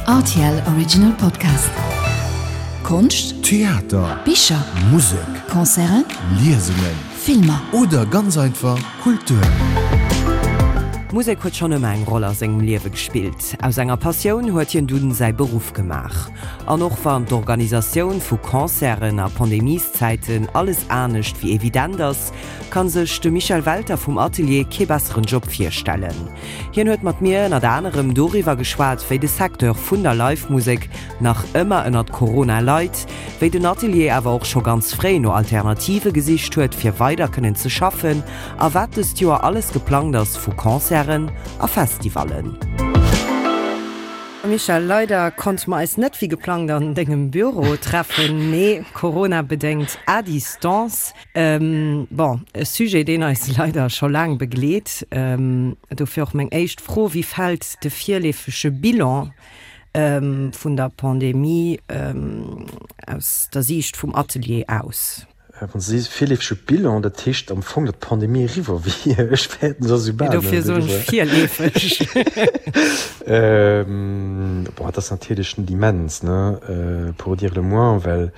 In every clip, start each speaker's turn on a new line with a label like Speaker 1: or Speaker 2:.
Speaker 1: Rtl Original Podcast. Konscht,
Speaker 2: Theater,
Speaker 1: Bicher,
Speaker 2: Musek,
Speaker 1: Concerten,
Speaker 2: Liesungen,
Speaker 1: Filmer.
Speaker 2: Oder ganz einfach Kultur.
Speaker 3: D'Musek huet schonn ëmmer eng Roll a sengem Liewe gespillt. Aus enger Passioun huet hien dunn säi Beruff gemaach. An och wann d'Organisatioun vu Concerten a Pandemieszäiten alles anescht wéi evident ass, kann sech de Michel Welter vum Atelier kee besseren Job virstellen. Hien huet mat mir ënnert anerem doriwwer geschwat, wéi de Secteur vun der Live-Musek nach ëmmer ënnert Corona leit, wéi den Atelier awer och scho ganz fréi no Alternative gesicht huet, fir weider kënnen ze schaffen a wat dëst Joer alles geplangt ass vu Concerten a Festivallen. Michel, leider konnte mer eis net wéi geplangt an dengem Büro treffen, mee Corona-bedéngt à distance. Bon, e Sujet, deen eis leider scho laang begleet. Dofir och meng éischt Fro, Wéi fält de virleefege Bilan vun der Pandemie aus der Siicht vum Atelier aus?
Speaker 4: Wann s de sees virleefege Bilan, dat heescht am Fong, datt d'Pandemie eriwwer wier. Ech fäerten, se ass esou bal net
Speaker 3: Dofir soen ech
Speaker 4: eriwwer.
Speaker 3: virleefeg.
Speaker 4: Bon, et ass natierlech net immens, ne, pour dire le moins, well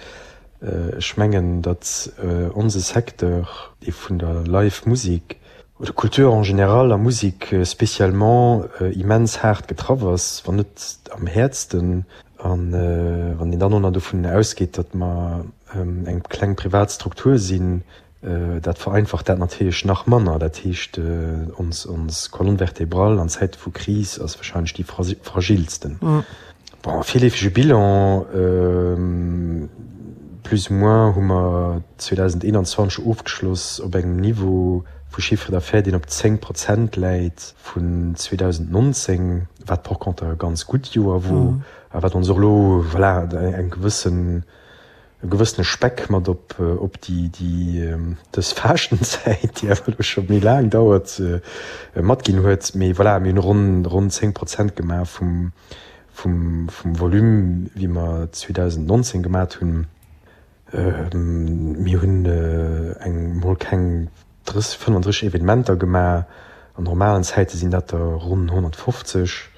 Speaker 4: Ech mengen, datt onse Secteur, dee vun der Live Musik oder Kultur en général a Musik spécialement, immens haart getraff ass, wann net am häertsten. A wann een dann och nach dovun ausgeet, datt mer eng kleng privat Struktur sinn, Dat vereinfacht dat natierlech nach manner. Dat heescht, ons Colonne vertébrale an Zäite vu Kris ass wahrscheinlech déi fragilsten. Bon, virleefege Bilan, plus ou moins hu mer 2021 ofgeschloss op engem Niveau vu Chiffre d'affaires, deen op 10 Prozent läit vun 2019, wat par contre e ganz gutt Joer wor a wat ons och elo, voilà, eng gewëssen, e gewëssene Speck mat op op déi déi dës Faaschtenzäit, déi awer elo scho méi laang dauert, matginn huet. Mee voilà, mir hunn ronn ronn 10 Prozent gemaach vum vum vum Volume, wéi mer 2019 gemat hunn. Mir hunn eng mol keng 30, 35 Evenementer gemaach. An normalen Zäite sinn dat der ronn 150.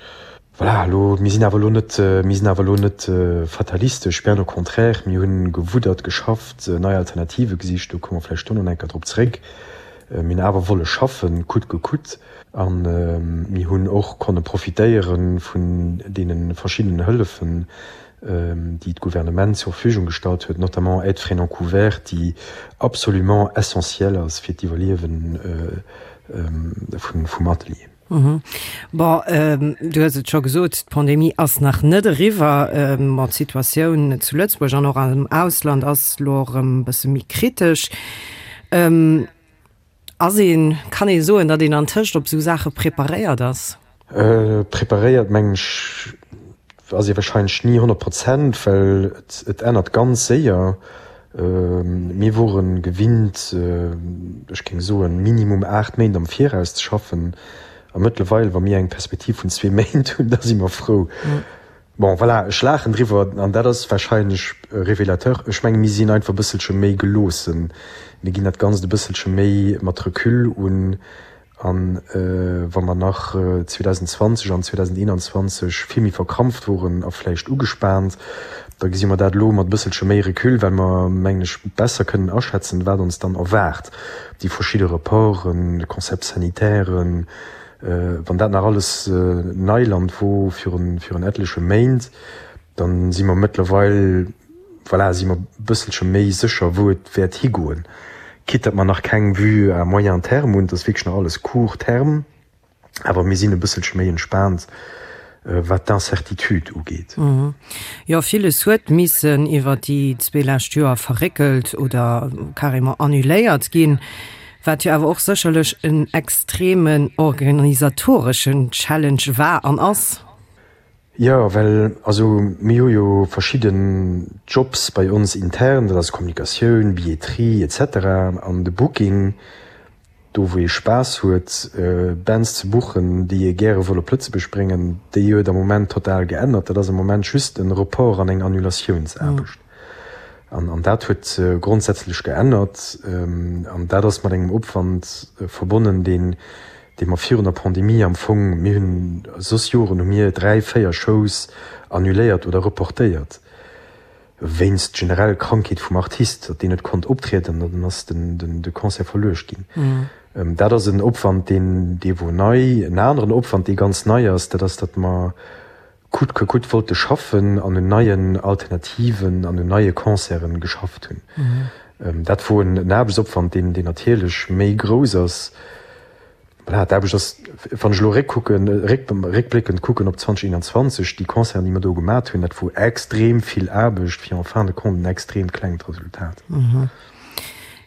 Speaker 4: Voilà, elo, mir sinn awer elo net, mir sinn awer elo net fatalistesch, bien au contraire, mir hunn gewuddert, geschafft, nei Alternative gesicht, do komme mer vläicht dono nach eng Kéier drop zréck. Mir hunn awer wolle schaffen, coûte que coûte, a mir hunn och konne profitéiere vun deene verschiddenen Hëllefen, déi d'Gouvernement zur Verfügung gestallt huet, notamment Aide frais non couverts, déi absolument essentiel ass fir d'Iwwerliewe vum Atelier.
Speaker 3: Bon, du hues et scho gesot, d'Pandemie ass nach net eriwwer. Bon, d'Situatioun zu Lëtzebuerg an och am Ausland ass elo erëm e bësse méi kritesch. Ass een, kann ee soen, datt een antëscht op esou Saache preparéiert ass?
Speaker 4: Preparéiert, mengen ech, ass ee warscheinlech ni 100 Prozent, well et ännert ganz séier. Mir wore gewinnt, ech géing soen, minimum 8 Méint am Viraus ze schaffen. A mëttlerweil, wa mir eng Perspektiv vun zwee Méint hunn, da si mer frou. Bon, voilà, ech laachen driwwer an dat ass warscheinlech révélateur. Ech mengen, mir sinn einfach e bësselche méi geloossen. Mir ginn dat Ganzt e bësselche méi mat Recul un. A wa mer nach 2020 an 2021 vill méi verkrampft woren a vläicht ugespaant, da gesi mer dat elo mat e bësselche méi Recul, well mer, mengen ech, besser kënnen aschätzen, wat ons dann erwaart, déi verschidde Reporten, Concepts sanitairen, wann dat nach alles Neiland wor virun etleche Méint, da si mer mëttlerweil, Voilà, si mer e bësselche méi sécher, wou et wäert higoen. Quitte datt mer nach keng Vue à moyen terme hunn, et ass wierklech nach alles court terme, awer mir sinn e bësselche méi entspaant, wat d'Incertitude ugeet.
Speaker 3: Jo, villes huet missen iwwer déi zwee lescht Joer verréckelt oder carrément annuléiert ginn, wat jo awer och sécherlech en extremen organisatoreschen Challenge war an ass.
Speaker 4: Jo, well also mir hu jo verschidden Jobs bei ons intern, dat ass Kommunikatioun, Billetterie et cetera an de Booking, do wou ee Spaass huet Bands ze buchen, déi ee gäre wëll op Lëtzebuerg bréngen, déi huet am Moment total geännert. Dat ass am Moment just en Report an eng Annulatiounsaarbecht an an dat huet grondsätzlech geännert an dat ass mat engem Opwand verbonnen, deen. dee mer virun der Pandemie am Fong, mir hunn soss Joren hu mir 3, 4 Shows annuléiert oder reportéiert wéinst generell Krankheet vum Artist, datt deen net konnt optrieden an dann ass de Concert verluecht ginn. Dat ass en Opwand, deen dee wor nei. En aneren Opwand, dee ganz nei ass, dat ass, datt mer coûte que coûte wollte schaffen an un neien Alternativen an un neie Concerten geschafft hunn. Dat wor en Aarbechtsopwand, deen deen natierlech méi grouss ass. Voilà, d'Aarbecht ass, wann ech elo réckkucken, réckbléckend kucken op 2021, déi Concerten, déi mer do gemat hunn, dat wor extrem vill Aarbecht fir en fin de compte en extrem klengt Resultat.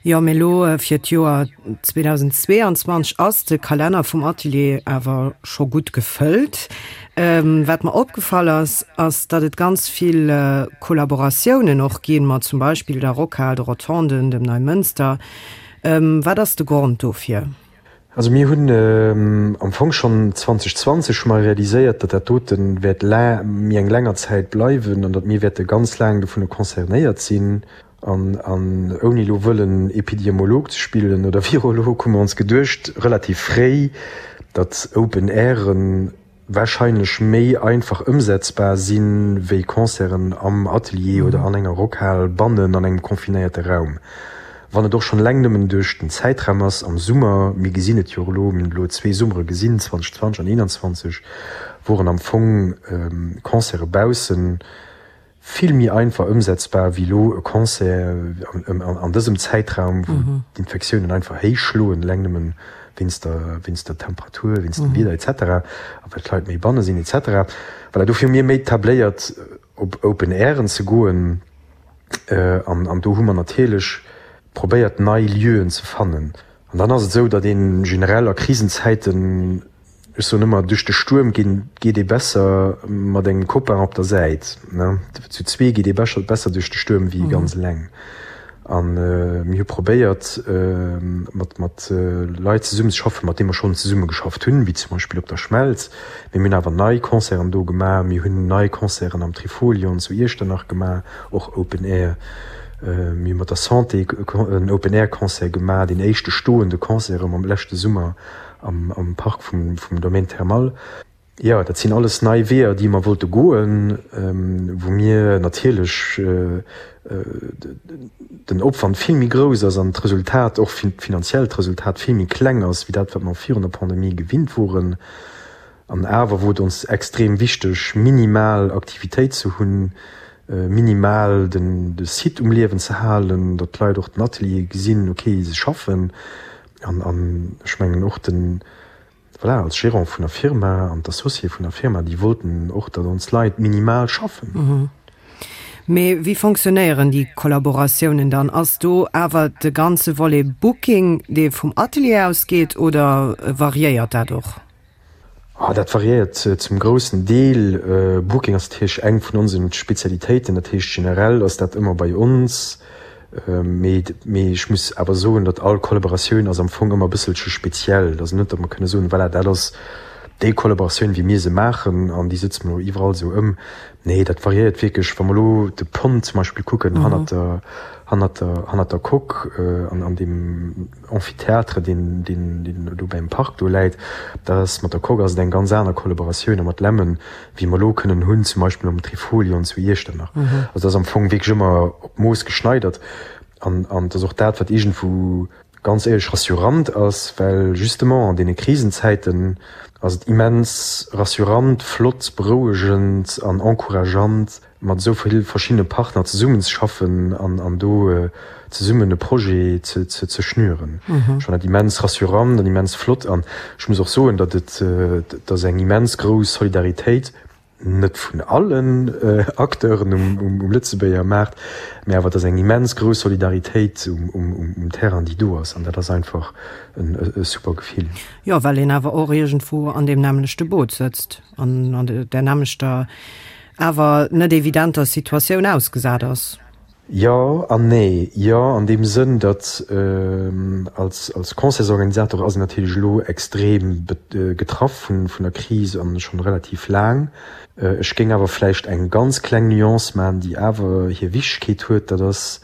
Speaker 3: Jo, mee elo fir d'Joer 2022 ass de Kalenner vum Atelier awer scho gutt gefëllt. Wat mer opgefall ass, ass datt et ganz vill Kollaboratiounen och ginn, mat zum Beispill der Rockhal, de Rotonden, dem Neimënster. Wat ass de Grond dofir?
Speaker 4: Also mir hunn am Fong schonn 2020 hu mer realiséiert, datt dat dote wäert méi eng länger Zäit bleiwen an datt mir wäerte ganz laang dovun concernéiert sinn. An ouni elo wëllen Epidemiolog ze spillen oder Virolog, hu mer ons geduecht, relativ fréi, datt Open Airen wahrscheinlech méi einfach ëmsetzbar sinn, wéi Concerten am Atelier oder an enger Rockhal bannen an engem confinéierte Raum. Wann et och schonn eleng nëmmen duerch den Zäitraum ass, am Summer, mir gesinn et jo och elo, mir hunn elo zwee Summere gesinn, 2020 an 2021, woren am Fong Concerte baussen vill méi einfach ëmsetzbar wéi elo e Concert an dësem Zäitraum, wou d'Infektiounen einfach héich schloen, eleng nëmmen wéinst der, wéinst der Temperatur, wéinst dem Wieder et cetera a well d'Leit méi banne sinn et cetera. Voilà, dofir hu mir méi tabléiert op Open Airen ze goen an an do hu mer natierlech probéiert nei Lieuen ze fannen. An dann ass et esou, datt ee generell a Krisenzäiten, Ech soen ëmmer, duerch de Stuerm ginn geet ee besser mat engem Copain op der Säit. Zu zwee geet ee bescher besser duerch de Stuerm wéi ganz eleng. A mir hu probéiert mat mat Leit zesummen ze schaffen, mat deene mer schonn zesumme geschafft hunn, wéi zum Beispill op der Schmelz. Mee mir hunn awer nei Concerten do gemaach. Mir hunn nei Concerten am Trifolion zu Iechternach gemaach, och Open Air. Mir hu mat der Santé en Open Air Concert gemaach, deen éischte stoende Concert erëm am leschte Summer. am Park vum Domaine Thermal. Jo, dat sinn alles nei Weeër, déi mer wollte goen, wou mir natierlech den Opwand vill méi grouss ass an d'Resultat, och finanziellt Resultat vill méi kleng ass wéi dat, wat mer virun der Pandemie gewinnt woren. An awer wor et ons extrem wichteg, minimal Aktivitéit ze hunn, minimal de Site um Liewen ze halen, datt d'Leit och den Atelier gesinn, okay, se schaffen. An, an ech mengen och den, voilà, als Gérant vun der Firma an d'Associé vun der Firma, déi wollten och, datt ons Leit minimal schaffen.
Speaker 3: Mee wéi fonctionnéieren déi Kollaboratiounen dann? Ass do awer de ganze Volet Booking, dee vum Atelier ausgeet, oder variéiert dat och?
Speaker 4: Ah, dat variéiert zum groussen Deel. Booking ass natierlech eng vun onsen Spezialitéiten, dat heescht generell ass dat ëmmer bei ons. Mee mee ech muss awer soen, datt all Kollaboratioun ass am Fong ëmmer e bësselche speziell. Et ass net, datt mer kënne soen, voilà, dat ass déi Kollaboratioun wéi mir se maachen an déi sëtze mer elo iwwerall esou ëm. Nee, dat variéiert wierklech. Wa mer elo de Pont zum Beispill kucken hannert der hannert der hannert der Coque an an deem Amphithéâtre, deen, deen, deen do beim Park do läit, dat ass mat der Coque ass et eng ganz aner Kollaboratioun a mat Lemmen, wéi mer elo kënnen hunn, zum Beispill mam Trifolion zu Iechternach. Also dat ass am Fong wierklech ëmmer op d'Mooss geschneidert an, an et ass och dat, wat iergendwou ganz éierlech rassurant ass, well justement an deene Krisenzäiten ass et immens rassurant, flott, berouegend an encourageant, mat esou vill verschiddene Partner zesummenzeschaffen an an do zesummen e Projet ze ze ze schnüren. Ech fannen dat immens rassurant an immens flott an ech muss och soen, datt et datt eng immens grouss Solidaritéit, net vun allen Acteuren um um Lëtzebuerger Maart, mä awer et ass eng immens grouss Solidaritéit um um um Terrain, déi do ass an dat ass einfach en e super Gefill.
Speaker 3: Jo, well een awer och iergendwou an deem nämmlechte Boot sëtzt an an där nämmlechter awer net evidenter Situatioun ausgesat ass.
Speaker 4: Jo an nee. Jo an deem Sënn, datt als als Concertsorganisator ass een natierlech elo extrem getraff vun vun der Kris an schonn relativ laang. Ech géing awer vläicht eng ganz kleng Nuance maachen, déi awer hir Wichtegkeet huet, dat ass.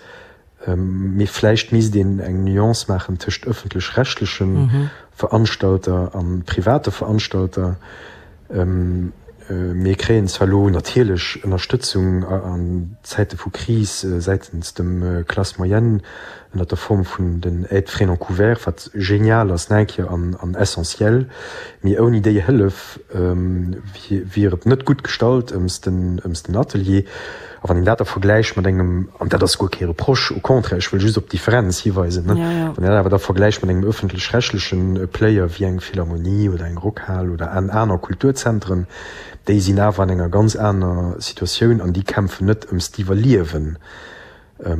Speaker 4: Mee vläicht misst een eng Nuance maachen tëscht ëffentlech-rechtleche Veranstalter a private Veranstalter. Mir kréien zwar elo natierlech Ënnerstëtzung an Zäite vu Kris säitens dem Classe moyenne ënnert der Form vun den Aides frais non couverts, wat genial ass nach eng Kéier an essentiel, mee ouni déi Hëllef wier et net gutt gestallt ëms den Atelier. A wann een dat da vergläicht mat engem, an dat ass guer kee Reproche, au contraire, ech wëll just op d'Differenz hiweisen, ne, wann een dat awer da vergläicht mat engem ëffentlech-rechtleche Player wéi eng Philharmonie oder eng Rockhal oder an aner Kulturzentren, déi sinn awer an enger ganz aner Situatioun an déi kämpfen net ëms d'Iwwerliewen. E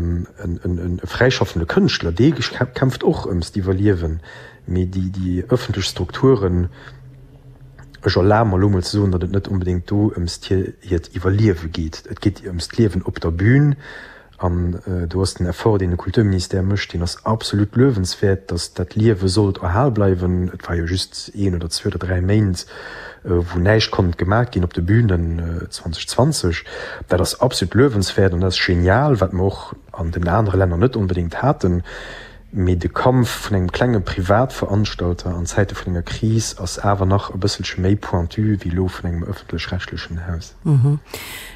Speaker 4: fräischaffende Kënschtler, dee kämpft och ëms d'Iwwerliewen, mee déi ëffentlech Strukturen, Ech erlabe mer elo mol ze soen, datt et net onbedéngt do ëms hiert Iwwerliewe geet. Et geet ëms d'Liewen op der Bühn. An do ass den Effort, deen de Kulturministère mécht, deen ass absolut luewenswäert, datt dat Liewe sollt erhal bleiwen. Et war jo just een oder zwee oder dräi Méint, wou näischt konnt gemaach ginn op de Bühnen 2020. Dat ass absolut luewenswäert an dat ass genial, wat mer och an den anere Länner net onbedéngt haten. Mee de Kampf vun engem klenge Privatveranstalter an Zäite vun enger Kris ass awer nach e bësselche méi pointu wéi elo vun engem ëffentlech-rechtlechen Haus.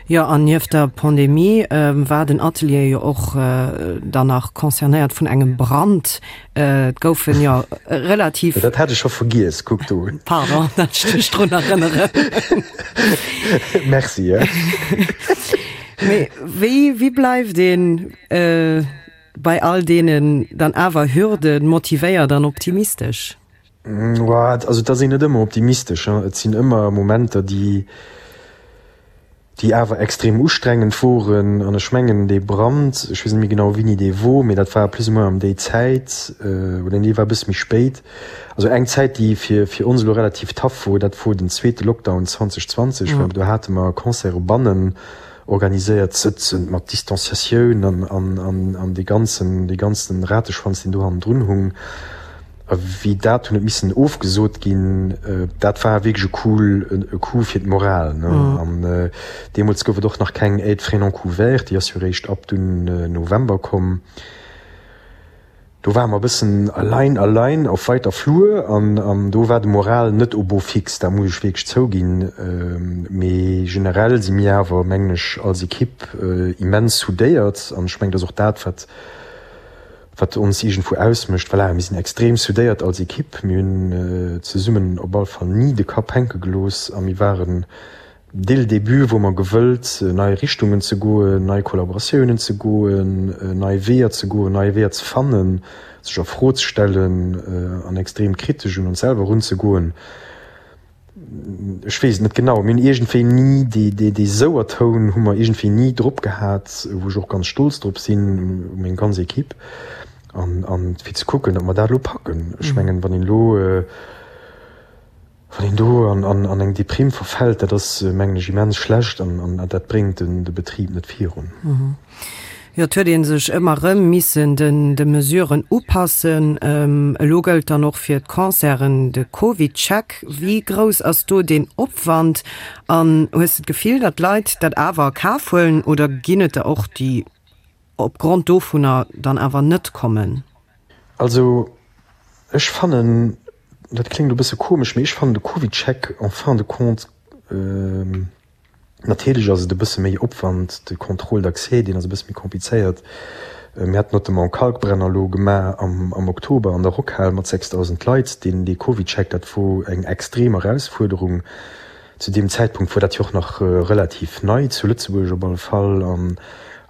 Speaker 3: Jo, an nieft der Pandemie war den Atelier jo och dann nach concernéiert vun engem Brand. Et goufen jo relativ.
Speaker 4: Dat hat ech scho vergiess, kuck do.
Speaker 3: Pardon, datt ech dech drun erënneren.
Speaker 4: Merci.
Speaker 3: Mee wéi, wéi bleift een Bei all deenen dann awer Hürden motivéiert an optimistesch?
Speaker 4: Also et ass een net ëmmer optimistesch. Et sinn ëmmer Momenter, déi déi awer extrem ustrengend woren. An ech mengen dee Brand, ech weess net méi genau wéini dee wor, mee dat war plus ou moins ëm déi Zäit, oder nee, war e bësse méi spéit. Also eng Zäit, déi fir fir ons elo relativ tough wor, dat wor den zweete Lockdown 2020, well do hate mer Concerte bannen organiséiert sëtzen, mat Distanciatioun an, an, an, an dee ganzen, dee ganzen Rateschwanz, deen do hannendrun hung. A wéi dat hunn et missen ofgesot ginn, dat war wierklech e Coup, e Coup fir d'Moral, ne. An deemools gouf et och nach keng Aide frais non couverts, déi ass jo eréischt ab dunn November komm. Do ware mer e bëssen allein, allein auf weiter Flur an an do war de Moral net au beau fixe, dat muss ech wierklech zouginn. Mee generell si mir awer, mengen ech, als Ekipp immens soudéiert an ech mengen, dat ass och dat, wat wat ons iergendwou ausmécht. Voilà, mir sinn extrem soudéiert als Ekipp, mir hunn zesummen op alle Fall ni de Kapp hänke gelooss a mir waren Dès le début wor mer gewëllt, nei Richtungen ze goen, nei Kollaboratiounen ze goen, nei Weeër ze goen, nei Weeër ze fannen, sech a Fro ze stellen an extrem kritesch un ons selwer erunzegoen. Ech weess et net genau, mir hunn iergendwéi ni dee, dee, dee Souertoun hu mer iergendwéi ni drop gehat, wou ech och ganz stolz drop sinn, u meng ganz Equipe, an, an fir ze kucken, datt mer dat elo packen. Ech mengen, wann een elo. Wann een do an eng Deprime verfält, dat ass, mengen ech, immens schlecht an dat bréngt de Betrib net virun.
Speaker 3: Jo, et huet ee sech ëmmer erëm missen de Mesuren upassen. Elo gëllt dann och fir d'Concerten de CovidCheck. Wéi grouss ass do deen Opwand an hues de d'Gefill, datt d'Leit dat awer a Kaf huelen oder ginn et der och, déi opgrond dovunner dann awer net kommen?
Speaker 4: Also ech fannen, dat kléngt elo e bësse komesch, mee ech fannen de CovidCheck en fin de compte, natierlech ass et e bësse méi Opwand, de Contrôle d'accès, deen ass e bësse méi komplizéiert. Mir haten notamment Kalkbrenner elo gemaach am Oktober an der Rockhal mat 6.000 Leit. Deen, dee CovidCheck, dat wor eng extrem Erausfuerderung. Zu deem Zäitpunkt wor dat jo och nach relativ nei, zu Lëtzebuerg op alle Fall, an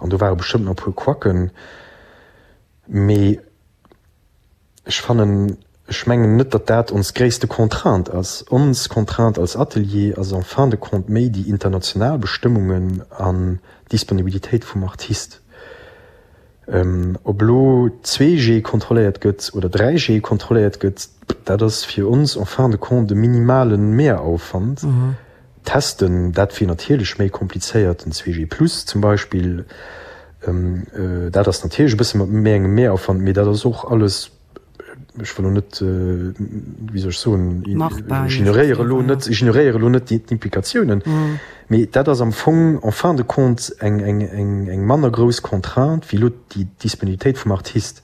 Speaker 4: an do ware bestëmmt nach e puer Quacken. Mee ech fannen, ech mengen net, datt dat ons gréisste Contrainte ass. Ons Contrainte als Atelier ass en fin de compte méi déi international Bestëmmungen an d'Disponibilitéit vum Artist. Ob elo 2G kontrolléiert gëtt oder 3G kontrolléiert gëtt, dat ass fir ons en fin de compte e minimale Mehraufwand. Testen, dat wier natierlech méi komplizéiert, den 2G plus zum Beispill, dat ass natierlech e bësse mat méi engem Mehraufwand, mee dat ass och alles. Ech wëll elo net, wéi soll ech soen, ech ignoréiere elo net, ech ignoréiere elo net d'Implikatiounen, mee dat ass am Fong en fin de compte eng, eng, eng, eng manner grouss Contrainte wéi elo déi Disponibilitéit vum Artist.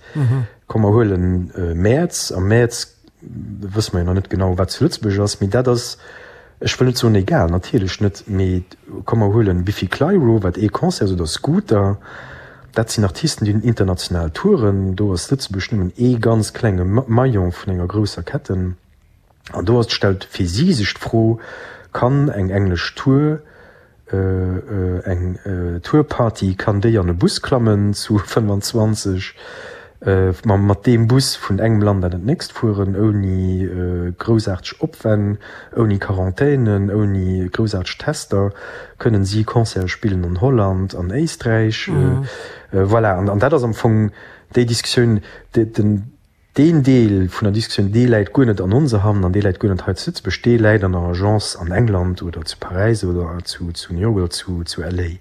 Speaker 4: Komm mer huelen Mäerz, am Mäerz wësse mer jo nach net genau wat zu Lëtzebuerg ass, mee dat ass, ech wëll net soen egal, natierlech net, mee komm mer huelen Biffy Clyro, wat ee Concert ass, oder Scooter, dat sinn Artisten déi hunn international Touren, do ass Lëtzebuerg nëmmen ee ganz klenge Maillon vun enger grousser Ketten an do ass stellt fir si sech d'Fro, kann eng englesch Tour Eng Tourparty, kann déi an e Bus klammen zu 25, mat deem Bus vun engem Land an dat nächst fueren, ouni groussaarteg Opwänn, ouni Quarantänen, ouni groussaarteg Tester, kënnen si Concerte spillen an Holland, an Éisträich. Voilà, an dat ass am Fong déi Diskussioun. Deen Deel vun der Diskussioun, dee läit guer net an onser Hand an dee läit guer net hei zu Lëtzebuerg, dee läit an der Agence an England oder zu Paräis oder zu New York oder zu LA.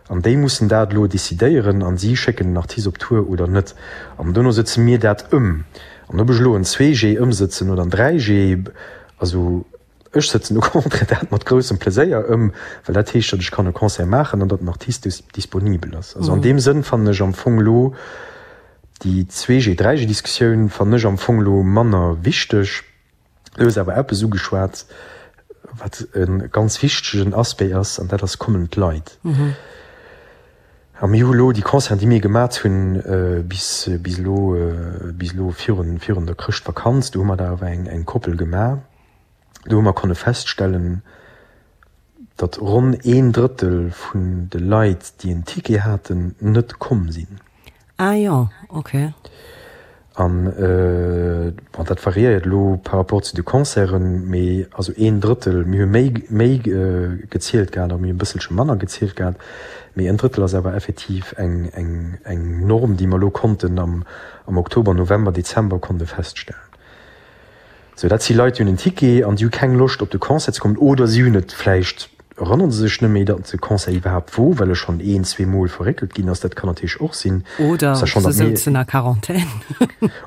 Speaker 4: An déi mussen dat elo decidéieren a si schécken den Artist op Tour oder net. An dono sëtze mir dat ëm. An ob ech elo en 2G ëmsëtzen oder en 3G, also Ech sëtzen au contraire dat mat groussem Pleséier ëm, well dat heescht, datt ech kann e Concert maachen an datt den Artist disponibel ass. Also an deem Sënn fannen ech am Fong elo déi 2G-, 3G-Diskussioun fannen ech am Fong elo manner wichteg. Du hues awer eppes ugeschwat, wat e ganz wichtegen Aspect ass, an dat ass, Kommen d'Leit? A mir hu lo déi Concerten, déi mir gemat hunn bis bis elo, bis elo virun virun der Chrëschtvakanz, do hu mer der awer eng eng Koppel gemaach, do hu mer konne feststellen, datt ronn een Drëttel vun de Leit, déi en Ticket haten, net komm sinn.
Speaker 3: Ah jo, ok.
Speaker 4: An, bon, dat variéiert elo par rapport zu de Concerten, mee also een Drëttel, mir hu méi, méi gezielt gehat a mir hu e bësselche manner gezielt gehat, mee en Drëttel ass awer effektiv eng, eng, eng Norm, déi mer elo konnten am, am Oktober, November, Dezember konnte feststellen. Sou, dat si Leit, déi hunn en Ticket an déi hu keng Loscht op de Concert ze kommen oder si hunn et vläicht, erënnere se sech net méi, datt de Concert iwwerhaapt wor, well e schonn een, zweemol verréckelt ginn ass. Dat kann natierlech och sinn.
Speaker 3: Oder se souzen a Quarantän.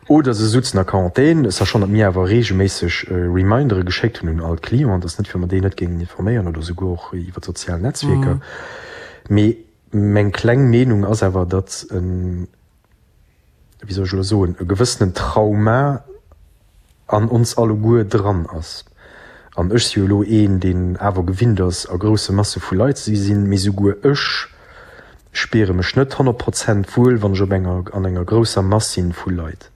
Speaker 4: Oder se souzen a Quarantän, sachant, datt mir awer reegelméisseg Remindere geschéckt hunn un all d'Clienten. Dat ass net, fir mer déi net géingen informéieren oder souguer och iwwer d'sozial Netzwierker. Mee meng kleng Meenung ass awer, datt en, wéi soll ech elo soen, e gewëssenen Trauma an ons alleguer dran ass. An ech si jo elo een, deen awer gewinnt ass, a grousse Masse vu Leit ze sinn, mee souguer ech spiere mech net 100 Prozent wuel, wann ech op enger, an enger grousser Mass sinn vu Leit.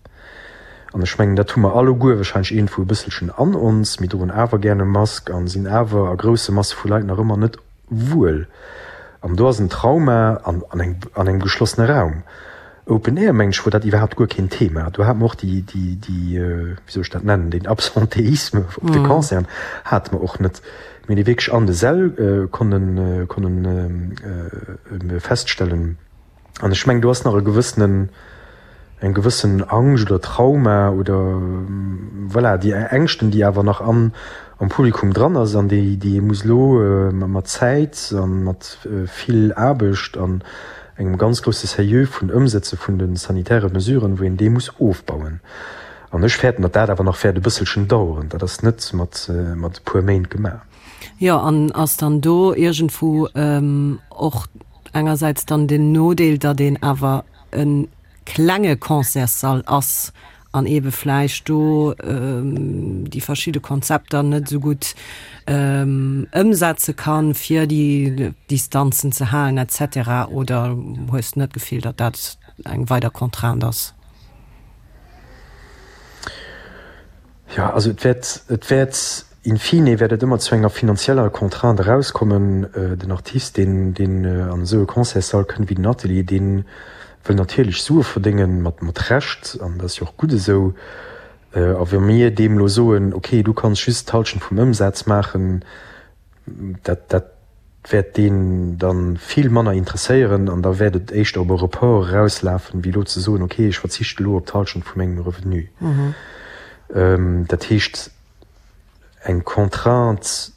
Speaker 4: An ech mengen, dat hu mer alleguer wahrscheinlech iergendwou e bësselchen an ons. Mir droen awer gären e Mask a sinn awer a grousse Masse vu Leit nach ëmmer net wuel. An do ass en Trauma an an engem geschlossene Raum. Open Air, mengen ech, wor dat iwwerhaapt guer keen Thema. Do hate mer och déi, déi, déi, wéi soll ech dat nennen, deen Absentéisme op de Concerten hate mer och net. Mir hunn dee wierklech an de Säll konnen, konnen feststellen. An ech mengen, do ass nach e gewëssenen, eng gewëssen Angscht oder Trauma oder voilà, déi Ängschten, déi awer nach an, am Publikum dran ass an déi, déi ee muss elo mat Zäit a mat vill Aarbecht an engem ganz grousse Sérieux vun Ëmsetze vun de sanitäre Mesuren, wou een dee muss ofbauen. An ech fäerten, datt dat awer nach wäert e bësselchen daueren. Dat ass net mat, mat e puer Méint gemaach.
Speaker 3: Jo, an ass dann do iergendwou och engersäits dann den Nodeel, datt een awer e klenge Concertssall ass an eebe vläicht do déi verschidde Konzepter net esou gutt ëmsetze kann, fir déi Distanzen ze halen et cetera? Oder hues de net d'Gefill, datt dat eng weider Contrainte ass?
Speaker 4: Jo, also et wäert, et wäert In fine wäert et ëmmer zu enger finanzieller Contrainte erauskommen. Den Artist, deen, deen an esou e Concertssall kënnt wéi den Atelier, dee wëll natierlech Sue verdéngen, mat, mat Recht, an dat ass jo och gutt esou. A wa mir deem elo soen, okay, du kanns just d'Hallschent vum Ëmsaz maachen, dat, dat wäert deen da vill manner interesséieren an da wäert et éischter op e Report erauslafen, wéi elo ze soen, okay, ech verzichte elo op d'Hallschent vu mengem Revenu. Dat heescht, eng Contrainte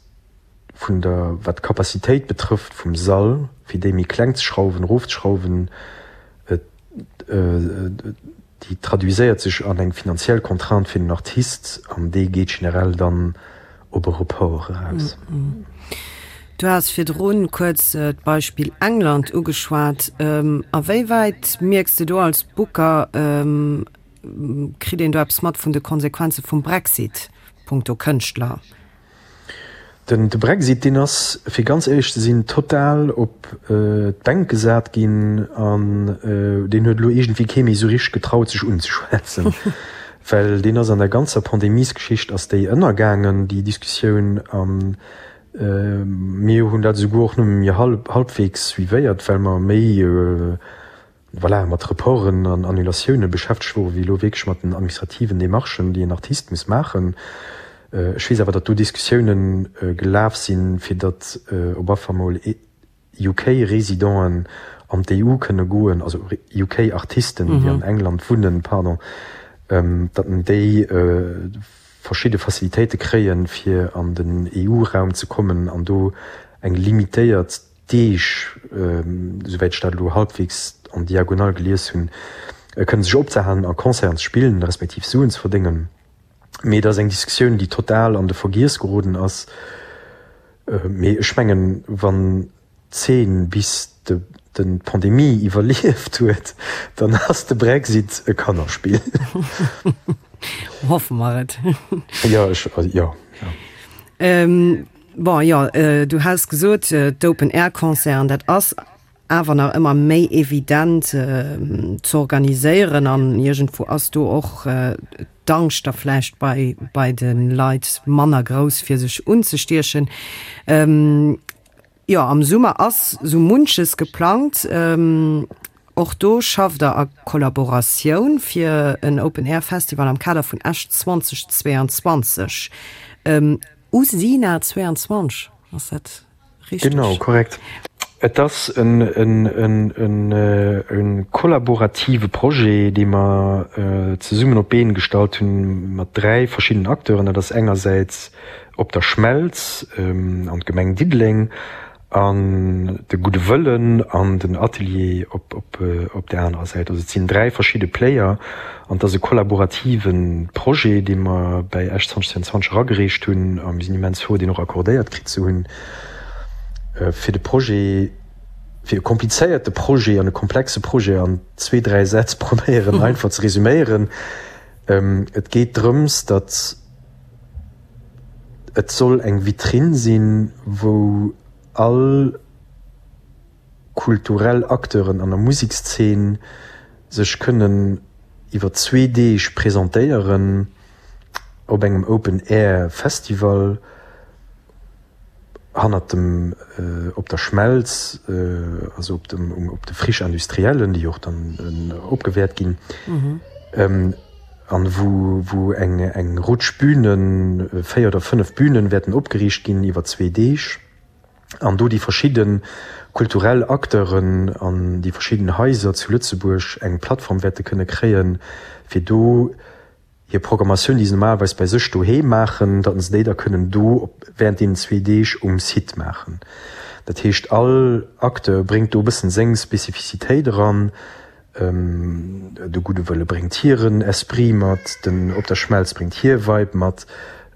Speaker 4: vun der, wat d'Capacitéit betrëfft vum Sall, fir déi méi kleng ze schrauwen, erofzeschrauwen. Déi traduiséiert sech an eng finanziell Contrainte fir den Artist an déi geet generell dann op e Report eraus.
Speaker 3: Du has virdrun kuerz d'Beispill England ugeschwat. A wéi wäit mierks de do als Booker, kritt een do eppes mat vun de Konsequenze vum Brexit punkto Kënschtler?
Speaker 4: Den de Brexit, deen ass, fir ganz éierlech ze sinn, total op d'Bänk gesat ginn an deen huet elo iergendwéi kee méi esou richteg getraut sech unzeschwätzen, well deen ass an der ganzer Pandemiesgeschicht ass déi ënnergaangen, déi Diskussioun. A mir hunn dat esouguer och nëmme méi halbwegs suivéiert, well mer méi, voilà, mat Reporten an Annulatioune beschäftegt wore wéi elo wierklech mat den administrativen Demarchen, déi en Artist muss maachen. Ech weess awer, datt do Diskussioune gelaf sinn, fir datt op affer mol UK-Residenten an d'EU kënne goen, also UK-Artisten, déi an England wunnen, pardon, datt déi verschidde Facilitéite kréien, fir an den EU-Raum ze kommen an do eng limitéiert Deeg, esouwäit ech dat elo halbwegs en diagonale gelies hunn, kënnen sech opzehalen a Concerten ze spillen, respektiv Suen ze verdéngen. Mee et ass eng Diskussioun, déi total an de Vergiess geroden ass. Mee ech mengen, wann d'Zeen bis d'Pandemie iwwerlieft huet, dann ass de Brexit e Kannerspill.
Speaker 3: Hoffe mer et.
Speaker 4: Jo, ech, jo, jo.
Speaker 3: Bon, jo, du has gesot, d'Open-Air-Concerten, dat ass awer nach ëmmer méi evident ze organiséieren an iergendwou ass do och d'Angscht da vläicht bei, bei de Leit manner grouss, fir sech unzestiechen. Jo, am Summer ass sou munches geplangt. Och do schafft der a Kollaboratioun fir en Open-Air-Festival am Kader vun Esch 2022. Usina 22, ass dat richteg?
Speaker 4: Genau, korrekt. Et ass e kollaborative Projet, dee mer zesummen op d'Been gestallt hunn mat 3 verschiddenen Acteuren. Dat ass engersäits Op der Schmelz an d'Gemeng Diddeleng An de Gudde Wëllen an den Atelier op op där anerer Säit. Also et sinn 3 verschidde Player an et ass e kollaborative Projet, dee mer bäi Esch 2022 eragereecht hunn a mir sinn immens frou, deen och accordéiert kritt ze hunn. Fir de Projet, fir e komplizéierte Projet an e komplexe Projet an zwee, dräi Sätz probéieren einfach ze resuméieren, Et geet drëms, datt, Et soll eng Vitrinn sinn, wou all kulturell Acteuren an der Musekszeen sech kënnen iwwer zwee Deeg presentéieren op engem Open Air Festival hannert dem Op der Schmelz, also op dem op de Friches industriellen, déi och dann opgewäert ginn, an wou wou eng eng Rutsch Bünen, 4 oder 5 Bünen wäerten opgeriicht ginn iwwer zwee Deeg, an do déi verschidde kulturell Acteuren an déi verschidden Haiser zu Lëtzebuerg eng Plattform wäerte kënne kréien, fir do hir Programmatioun, déi se normalerweis bei sech doheem maachen, datt se déi da kënnen do op während deenen zwee Deeg um Site maachen. Dat heescht, all Acteur bréngt do e bëssen seng Spezifizitéit eran. De Gudde Wëlle bréngt hiren Esprit mat, den Op der Schmelz bréngt hir Vibe mat,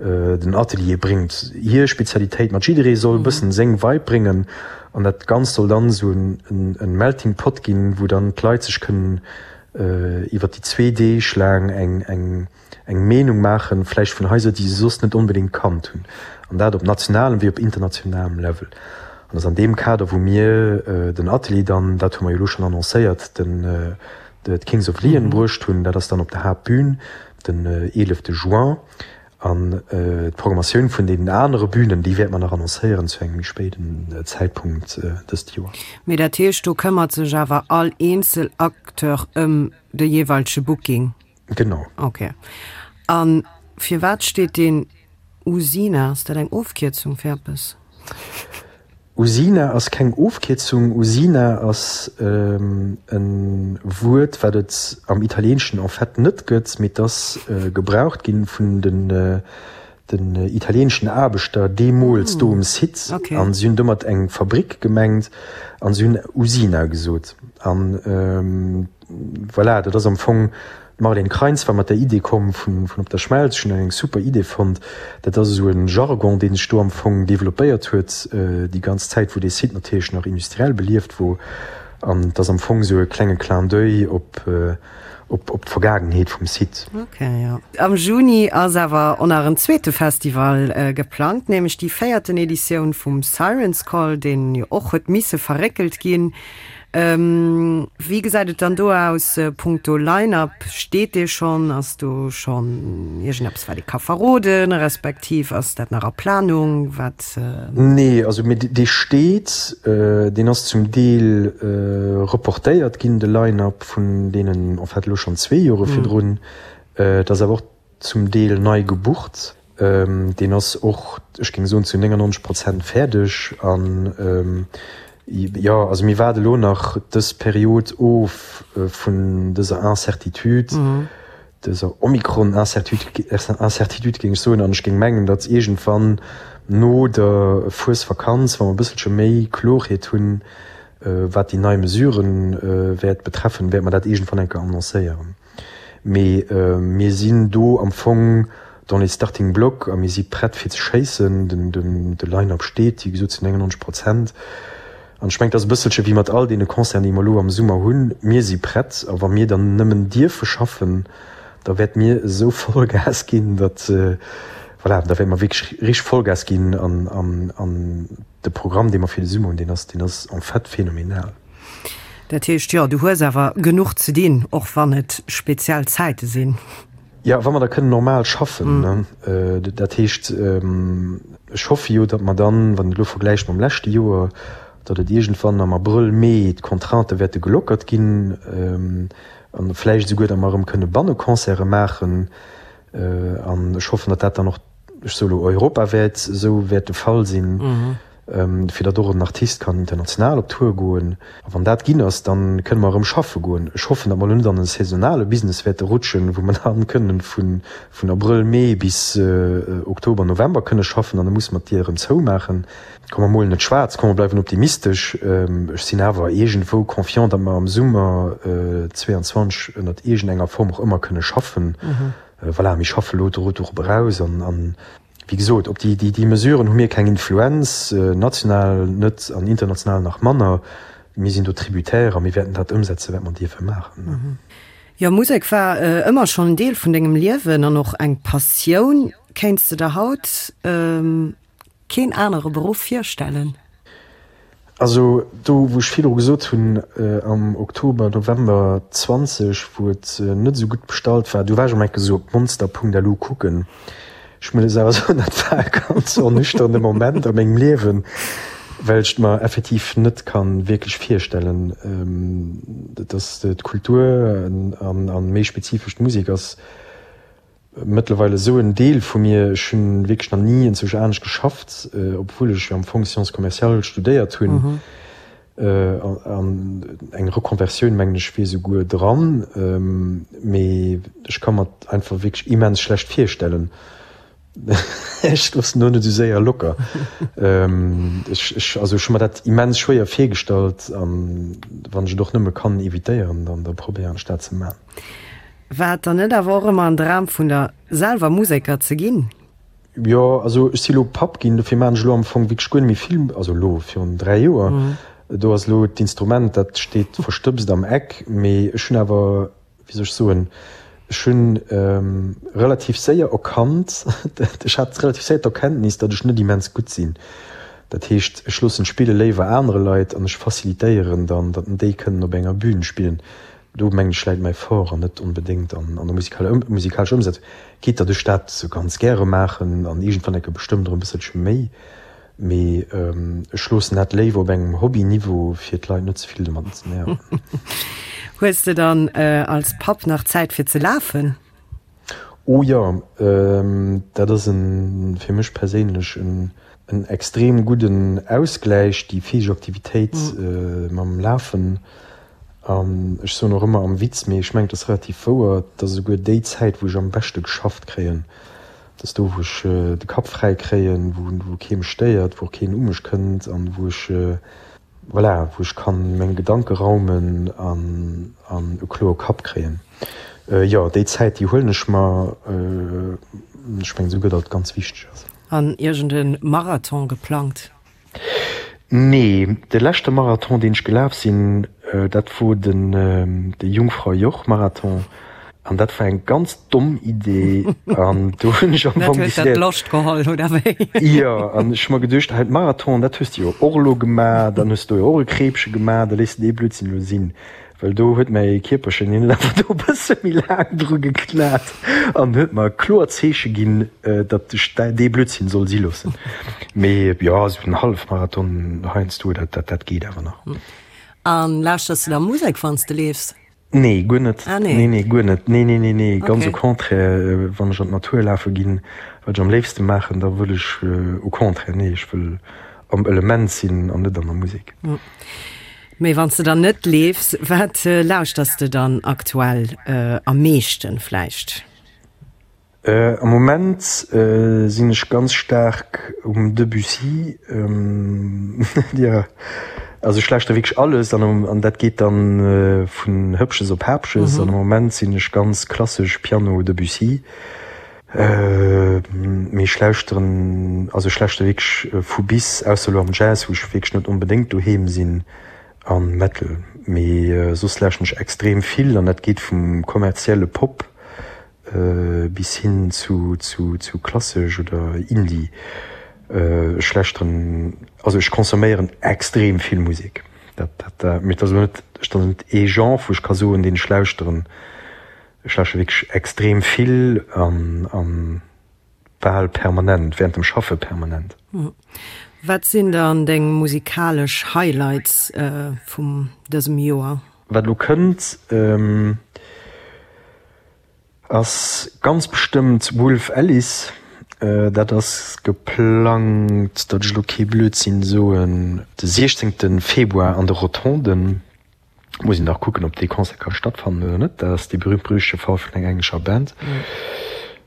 Speaker 4: den Atelier bréngt hir Spezialitéit mat. Jidderee soll e bëssen seng Vibe bréngen an dat Ganzt soll dann esou en Melting Pot ginn, wou dann d'Leit sech kënnen iwwer déi zwee Deeg laang eng eng eng Meenung maachen, vläicht vun Haiser, déi se soss net onbedéngt kannt hunn, an dat op nationalem wéi op internationalem Level. An ass an deem Kader, wou mir den Atelier dann, dat hu mer jo elo schonn annoncéiert, den d'Kings of Leon bruecht hunn. Dat ass dann op der Haaptbün den 11 Juin. An d'Programmatioun vun deenen anere Bünen, déi wäerte mer nach annoncéieren zu engem méi spéiden Zäitpunkt dëst Joer.
Speaker 3: Mee dat heescht, do këmmert sech awer all eenzel Acteur ëm de jeeweilege Booking?
Speaker 4: Genau.
Speaker 3: Ok. A firwat steet deen Usina? Ass dat eng Ofkierzung fir eppes?
Speaker 4: Usina ass keng Ofkierzung. Usina ass e Wuert, wat et am Italieenschen en fait net gëtt, mee et ass gebraucht gi vun den italieenschen Aarbechter deemools do um Site. A si hunn domat eng Fabrick gemengt a si hunn Usina gesot. An voilà, dat ass am Fong. D'Marlène Kreins war mat der Idee komm vun Op der Schmelz. Ech hunn eng super Idee fonnt. Dat ass esou e Jargon, dee sech do am Fong developpéiert huet déi ganz Zäit, wou dee Site natierlech nach industriell belieft wor. An et ass am Fong esou e klenge Clin d'oeil op op d'Vergaangenheet vum Site.
Speaker 3: Ok, jo. Am Juni ass awer och nach en zweete Festival geplangt, nämlech déi véierten Editioun vum Siren's Call, deen jo och huet misse verréckelt ginn. Wéi gesäit et dann do aus punkto Line-Up? Steet dee schonn? Ass do schonn iergendeppes, wat ee ka verroden, respektiv ass dat nach a Planung? Wat.
Speaker 4: Nee, also mee dee steet. Deen ass zum Deel reportéiert ginn, de Line-Up vun deenen en fait elo schonn zwee Jore virdrun. Et ass awer och zum Deel nei gebucht. Deen ass och, ech géing soen, zu 99 Prozent fäerdeg. An jo, also mir waarde elo nach dës Period of vun dëser Incertitude, dëser Omikron-Incertitude, géing ech soen. An ech géing mengen, datt iergendwann no der Fuesvakanz, wa mer e bësselche méi Klorheet hunn, wat déi nei Mesuren wäert betreffen, wäerte mer dat iergendwann eng Kéier annoncéieren. Mee mir sinn do am Fong dans les starting blocks a mir si prett fir ze schéissen. De Line-up steet, wéi gesot, zu 99 Prozent. An ech mengen, et ass e bësselche wéi mat all deene Concerten, déi mer elo am Summer hunn, Mir si prett a wa mir dann nëmmen dierfe schaffen, da wäerte mir esou Vollgas ginn, datt, voilà, da wäerte mer wierklech richteg Vollgas ginn an de Programm, dee mer fir de Summer hunn, deen ass, deen ass en fait phénoménal.
Speaker 3: Dat heescht, jo, du hues awer genuch ze dinn, och wann et speziell Zäite sinn.
Speaker 4: Jo, wa mer da kënnen normal schaffen, ne. Dat heescht, ech hoffe jo, datt mer dann, wann een et elo vergläicht mam leschte Joer, datt et iergendwann am Abrëll, Mee d'Contraintë wäerte gelockert ginn an vläicht esouguer, datt mer erëm kënne Banneconcerte maachen. An ech hoffen, datt dat dann och, ech soe elo europawäit esou wäert de Fall sinn. fir datt och en Artist kann international op Tour goen. A wann dat ginn ass, da kënne mer erëm schaffe goen. Ech hoffen, datt mer elo net an e saisonale Business wäerte rutschen, wou mer dann kënnen vun Abrëll, Mee bis Oktober, November kënne schaffen an da musse mer d'Dier erëm zoumaachen. Komm mer molen net schwaarz, komm mer bleiwen optimistesch. Ech sinn awer iergendwou confiant, datt mer am Summer 22 ënnert iergendenger Form och ëmmer kënne schaffen. Voilà, mir schaffe elo dorop eraus an Wéi gesot, op déi, déi Mesuren hu mir keng Influenz, national net an international nach manner. Mir sinn do tributaire a mir wäerten dat ëmsetzen, wat mer dierfe maachen.
Speaker 3: Jo, Musek war ëmmer schonn en Deel vun dengem Liewen an och eng Passioun. Kéints de der haut keen anere Beruff virstellen?
Speaker 4: Also do wou ech virdru gesot hunn, am Oktober, November 20, wou et net esou gutt bestallt war, do war ech am enke sou op monster.lu kucken. Ech muss awer soen, dat war e ganz ernüchternde Moment a mengem Liewen, well ech et mer effektiv net ka wierklech virstellen, dass d'Kultur an méi spezifesch d'Musek ass, Mëttlerweil esou en Deel vu mir. Ech hunn wierklech nach ni enzwousch anescht geschafft, obwuel ech jo am Fong Sciences commerciales studéiert hunn. An eng Reconversioun, mengen ech, wier esouguer dran. Mee ech ka mer et einfach wierklech immens schlecht virstellen. Ech loossen do net esou séier locker. Ech, ech, also ech hu mer dat immens schwéier virgestallt an wann ech et och nëmme kann evitéieren, dann da probéieren ech dat ze man.
Speaker 3: War et dann net awer och ëmmer en Dram vun der, selwer Museker ze ginn?
Speaker 4: Jo, also ech si lo Papp ginn, dofir maachen ech elo am Fong wierklech guer net méi vill, also elo virun 3 Joer, do ass elo d'Instrument, dat steet verstëbst am Eck, mee ech hunn awer, wéi soll ech soen, ech hunn relativ séier erkannt, ech hat relativ séier d'Erkenntnis, datt ech net immens gutt sinn. Dat heescht, ech loossen d'Spille léiwer anere Leit an ech facilitéieren dann, datt déi kënnen op enger Bühn spillen. Do mengen ech läit mäi Fort an net onbedéngt an der musikalescher Ëmsetzung. Quitte datt ech dat sou ganz gäre maachen an iergendwann enke bestëmmt erëm e bësselche méi, mee ech loossen dat léiwer op engem Hobby-Niveau fir d'Leit net ze vill domadden ze nerven.
Speaker 3: Hues de dann als Papp nach Zäit fir ze lafen?
Speaker 4: Oh jo, dat ass en fir mech perséinlech en extrem gudden Ausgläich, déi physesch Aktivitéit mam Lafen. An ech soen och ëmmer am Witz, mee ech mengen et ass relativ wouer, et ass esouguer déi Zäit wou ech am beschte geschafft kréien. Et ass do wou ech de Kapp fräi kréien, wou kee mech stéiert, wou och keen u mech kënnt an wou ech, voilà, wou ech kann meng Gedanke raumen an an e kloe Kapp kréien. Jo, déi Zäit, déi huelen ech mer. Ech mengen esouguer, datt et ganz wichteg ass.
Speaker 3: An iergend e Marathon geplangt?
Speaker 4: Nee, de leschte Marathon deen ech gelaf sinn, dat wor den de Jungfrau-Joch-Marathon an dat war eng ganz domm Idee an do hunn ech am
Speaker 3: Fong décidéiert. Dat huet der d'Loscht geholl, oder wéi?
Speaker 4: Jo, an ech hu mer geduecht, hei Marathon, dat hues de jo och elo gemaach, dann hues de do jo och e Kreepche gemaach, da léiss de dee Blödsinn elo sinn. Well do huet mäi Kierperchen, hien huet einfach do e bësse méi laang dru geknat an huet mer kloer Zeeche ginn, datt ech dee Blödsinn soll si loossen. Mee jo, esou en Hallefmarathon heiansdo, dat, dat geet awer nach.
Speaker 3: A lauschters de da Musek, wann s de leefs?
Speaker 4: Nee, guer net.
Speaker 3: Ah nee.
Speaker 4: Nee, nee, guer net. Nee, nee, nee, nee, ganz
Speaker 3: Okay.
Speaker 4: au contraire, wann ech an d'Natur lafe ginn, wat ech am léifste maachen, da wëll ech au contraire, nee, ech wëll am Element sinn an net an der Musek.
Speaker 3: Mee wann s de dann net leefs, wat lauschters de dann aktuell am meeschten vläicht?
Speaker 4: Am Moment sinn ech ganz staark um Debussy. Jo, also ech lauschteren wierklech alles an an dat geet dann vun Hëppches op Häppches. An am Moment sinn ech ganz klassesch Piano Debussy. Mee ech lauschteren, also ech lauschtere wierklech vu bis, ausser elo am Jazz, wou ech wierklech net onbedéngt doheem sinn, a Metal. Mee soss lauschteren ech extrem vill an dat geet vum kommerzielle Pop bis hin zu zu klassesch oder Indie. Ech lauschteren, also ech consomméieren extrem vill Musek. Dat dat, mee et ass elo net, et ass net ee Genre, wou ech ka soen, deen ech lauschteren. Ech lauschteren wierklech extrem vill an an bal permanent, während dem Schaffe permanent.
Speaker 3: Wat sinn dann deng musikalesch Highlights vum dësem Joer?
Speaker 4: Wat elo kënnt ass ganz bestëmmt Wolf Alice. Dat ass geplangt, datt ech elo kee Blödsinn soen, de 16 Februar an de Rotonden. Muss een nach kucken, ob dee Concert ka stattfannen oder net. Dat ass dee berühmt-berüchtegte Fall vun enger englescher Band.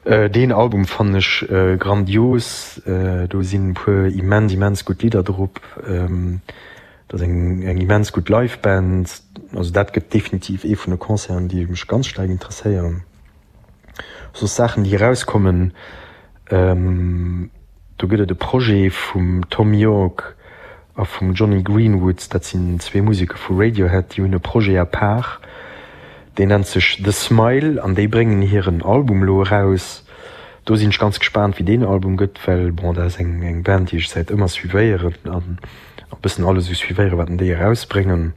Speaker 4: Deen Album fannen ech grandios. Do sinn e puer immens, immens gutt Lidder drop. Dat ass eng, eng immens gutt Live-Band. Also dat gëtt definitiv ee vun de Concerten, déi mech ganz staark interesséieren. Soss Saachen, déi erauskommen, do gëtt et e Projet vum Thom Yorke a vum Jonny Greenwood, dat sinn zwee Museker vu Radiohead, déi hunn e Projet à part, deen nennt sech The Smile an déi bréngen hiren Album elo eraus. Do sinn ech ganz gespaant, wéi deen Album gëtt, well bon, dat ass eng eng Band, déi ech säit ëmmer suivéieren an e bëssen alles esou suivéieren, wat déi erausbréngen.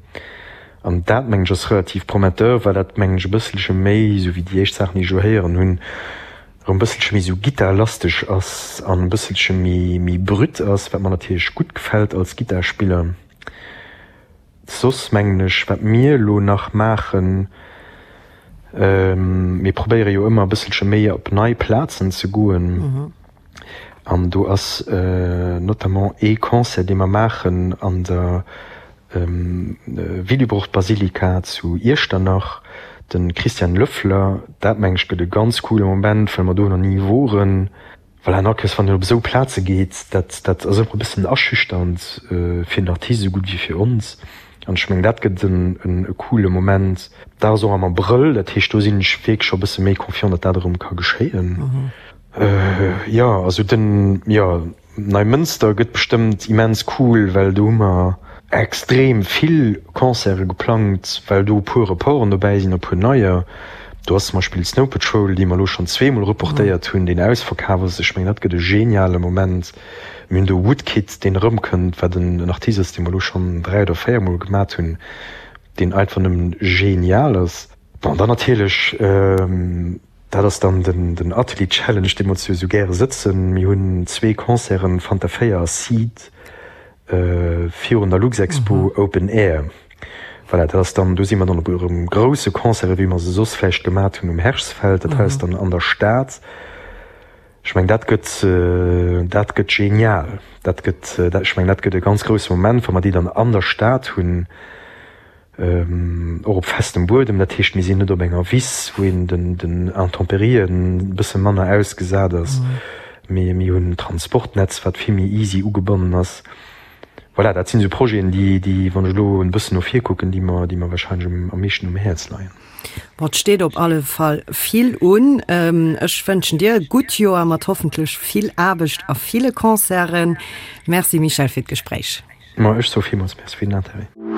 Speaker 4: An dat, mengen ech, ass relativ prometteur, well dat, mengen ech, e bësselche méi, esou wéi déi éischt Saachen, déi ech elo héieren hunn, erëm e bësselche méi esou gittarlasteg ass an e bësselche méi, méi brut ass, wat mer natierlech gutt gefält als Gittarspiller. Soss, mengen ech, wat mir elo nach maachen, mir probéiere jo ëmmer e bësselche méi op nei Plazen ze goen. An do ass notamment ee Concert, dee mer maachen an der Willibrord-Basilika zu Iechternach, de Christian Löffler. Dat, meng ech, gëtt e ganz coole Moment, well mer do nach ni woren. Voilà, an all Kéiers, wann een op esou Plaze geet, dat, dat ass ëmmer e bëssen aschüchternd fir den Artist esou gutt wéi fir ons. An ech mengen, dat gëtt en e coole Moment. Dat ass och am Abrëll, dat heescht, do sinn ech wierklech scho e bësse méi confiant, datt dat erëm ka geschéien. Jo, also den, jo, Neimënster gëtt bestëmmt immens cool, well do hu mer extrem vill Concerte geplangt, well do e puer Reporten dobäi sinn a puer neier. Do ass zum Beispill Snow Patrol, déi mer elo schonn zweemol reportéiert hunn, deen ausverkaf ass. Ech mengen, dat gëtt e geniale Moment. Mir hunn do Woodkid, deen erëmkënnt, wat en Artist ass, dee mer elo schonn 3 oder 4 mol gemat hunn, deen einfach nëmmen genial ass. Bon, dann natierlech Dat ass dann den Atelier Challenge, dee mer zu esou gäre sëtzen. Mir hunn zwee Concerten, Fanta 4 a Seed, virun der Luxexpo Open Air. Voilà, dat ass dann, do si mer dann op erëm grousse Concerte wéi mer se soss vläicht gemat hunn um Herschsfeld. Dat hei ass dann an der Stad. Ech mengen, dat gëtt, dat gëtt genial. Dat gëtt, ech mengen, dat gëtt e ganz grousse Moment, wa mer déi dann an der Stad hunn. Och op festem Buedem, dat heescht mir sinn net op enger Wiss, wou een den Intemperien e bësse manner ausgesat ass, mee mir hunn en Transportnetz, wat vill méi easy ugebonnen ass. Voilà, dat sinn esou Projeten, déi, déi, wann ech elo en bëssen no vir kucken, déi mer, déi mer wahrscheinlech um, am meeschten um Häerz leien.
Speaker 3: Bon, et steet op alle Fall vill un. Ech wënschen dir e gutt Joer mat hoffentlech vill Aarbecht a ville Concerten. Merci Michèle fir d'Gespréich.
Speaker 4: Ma ech soe villmools Merci fir den Interêt.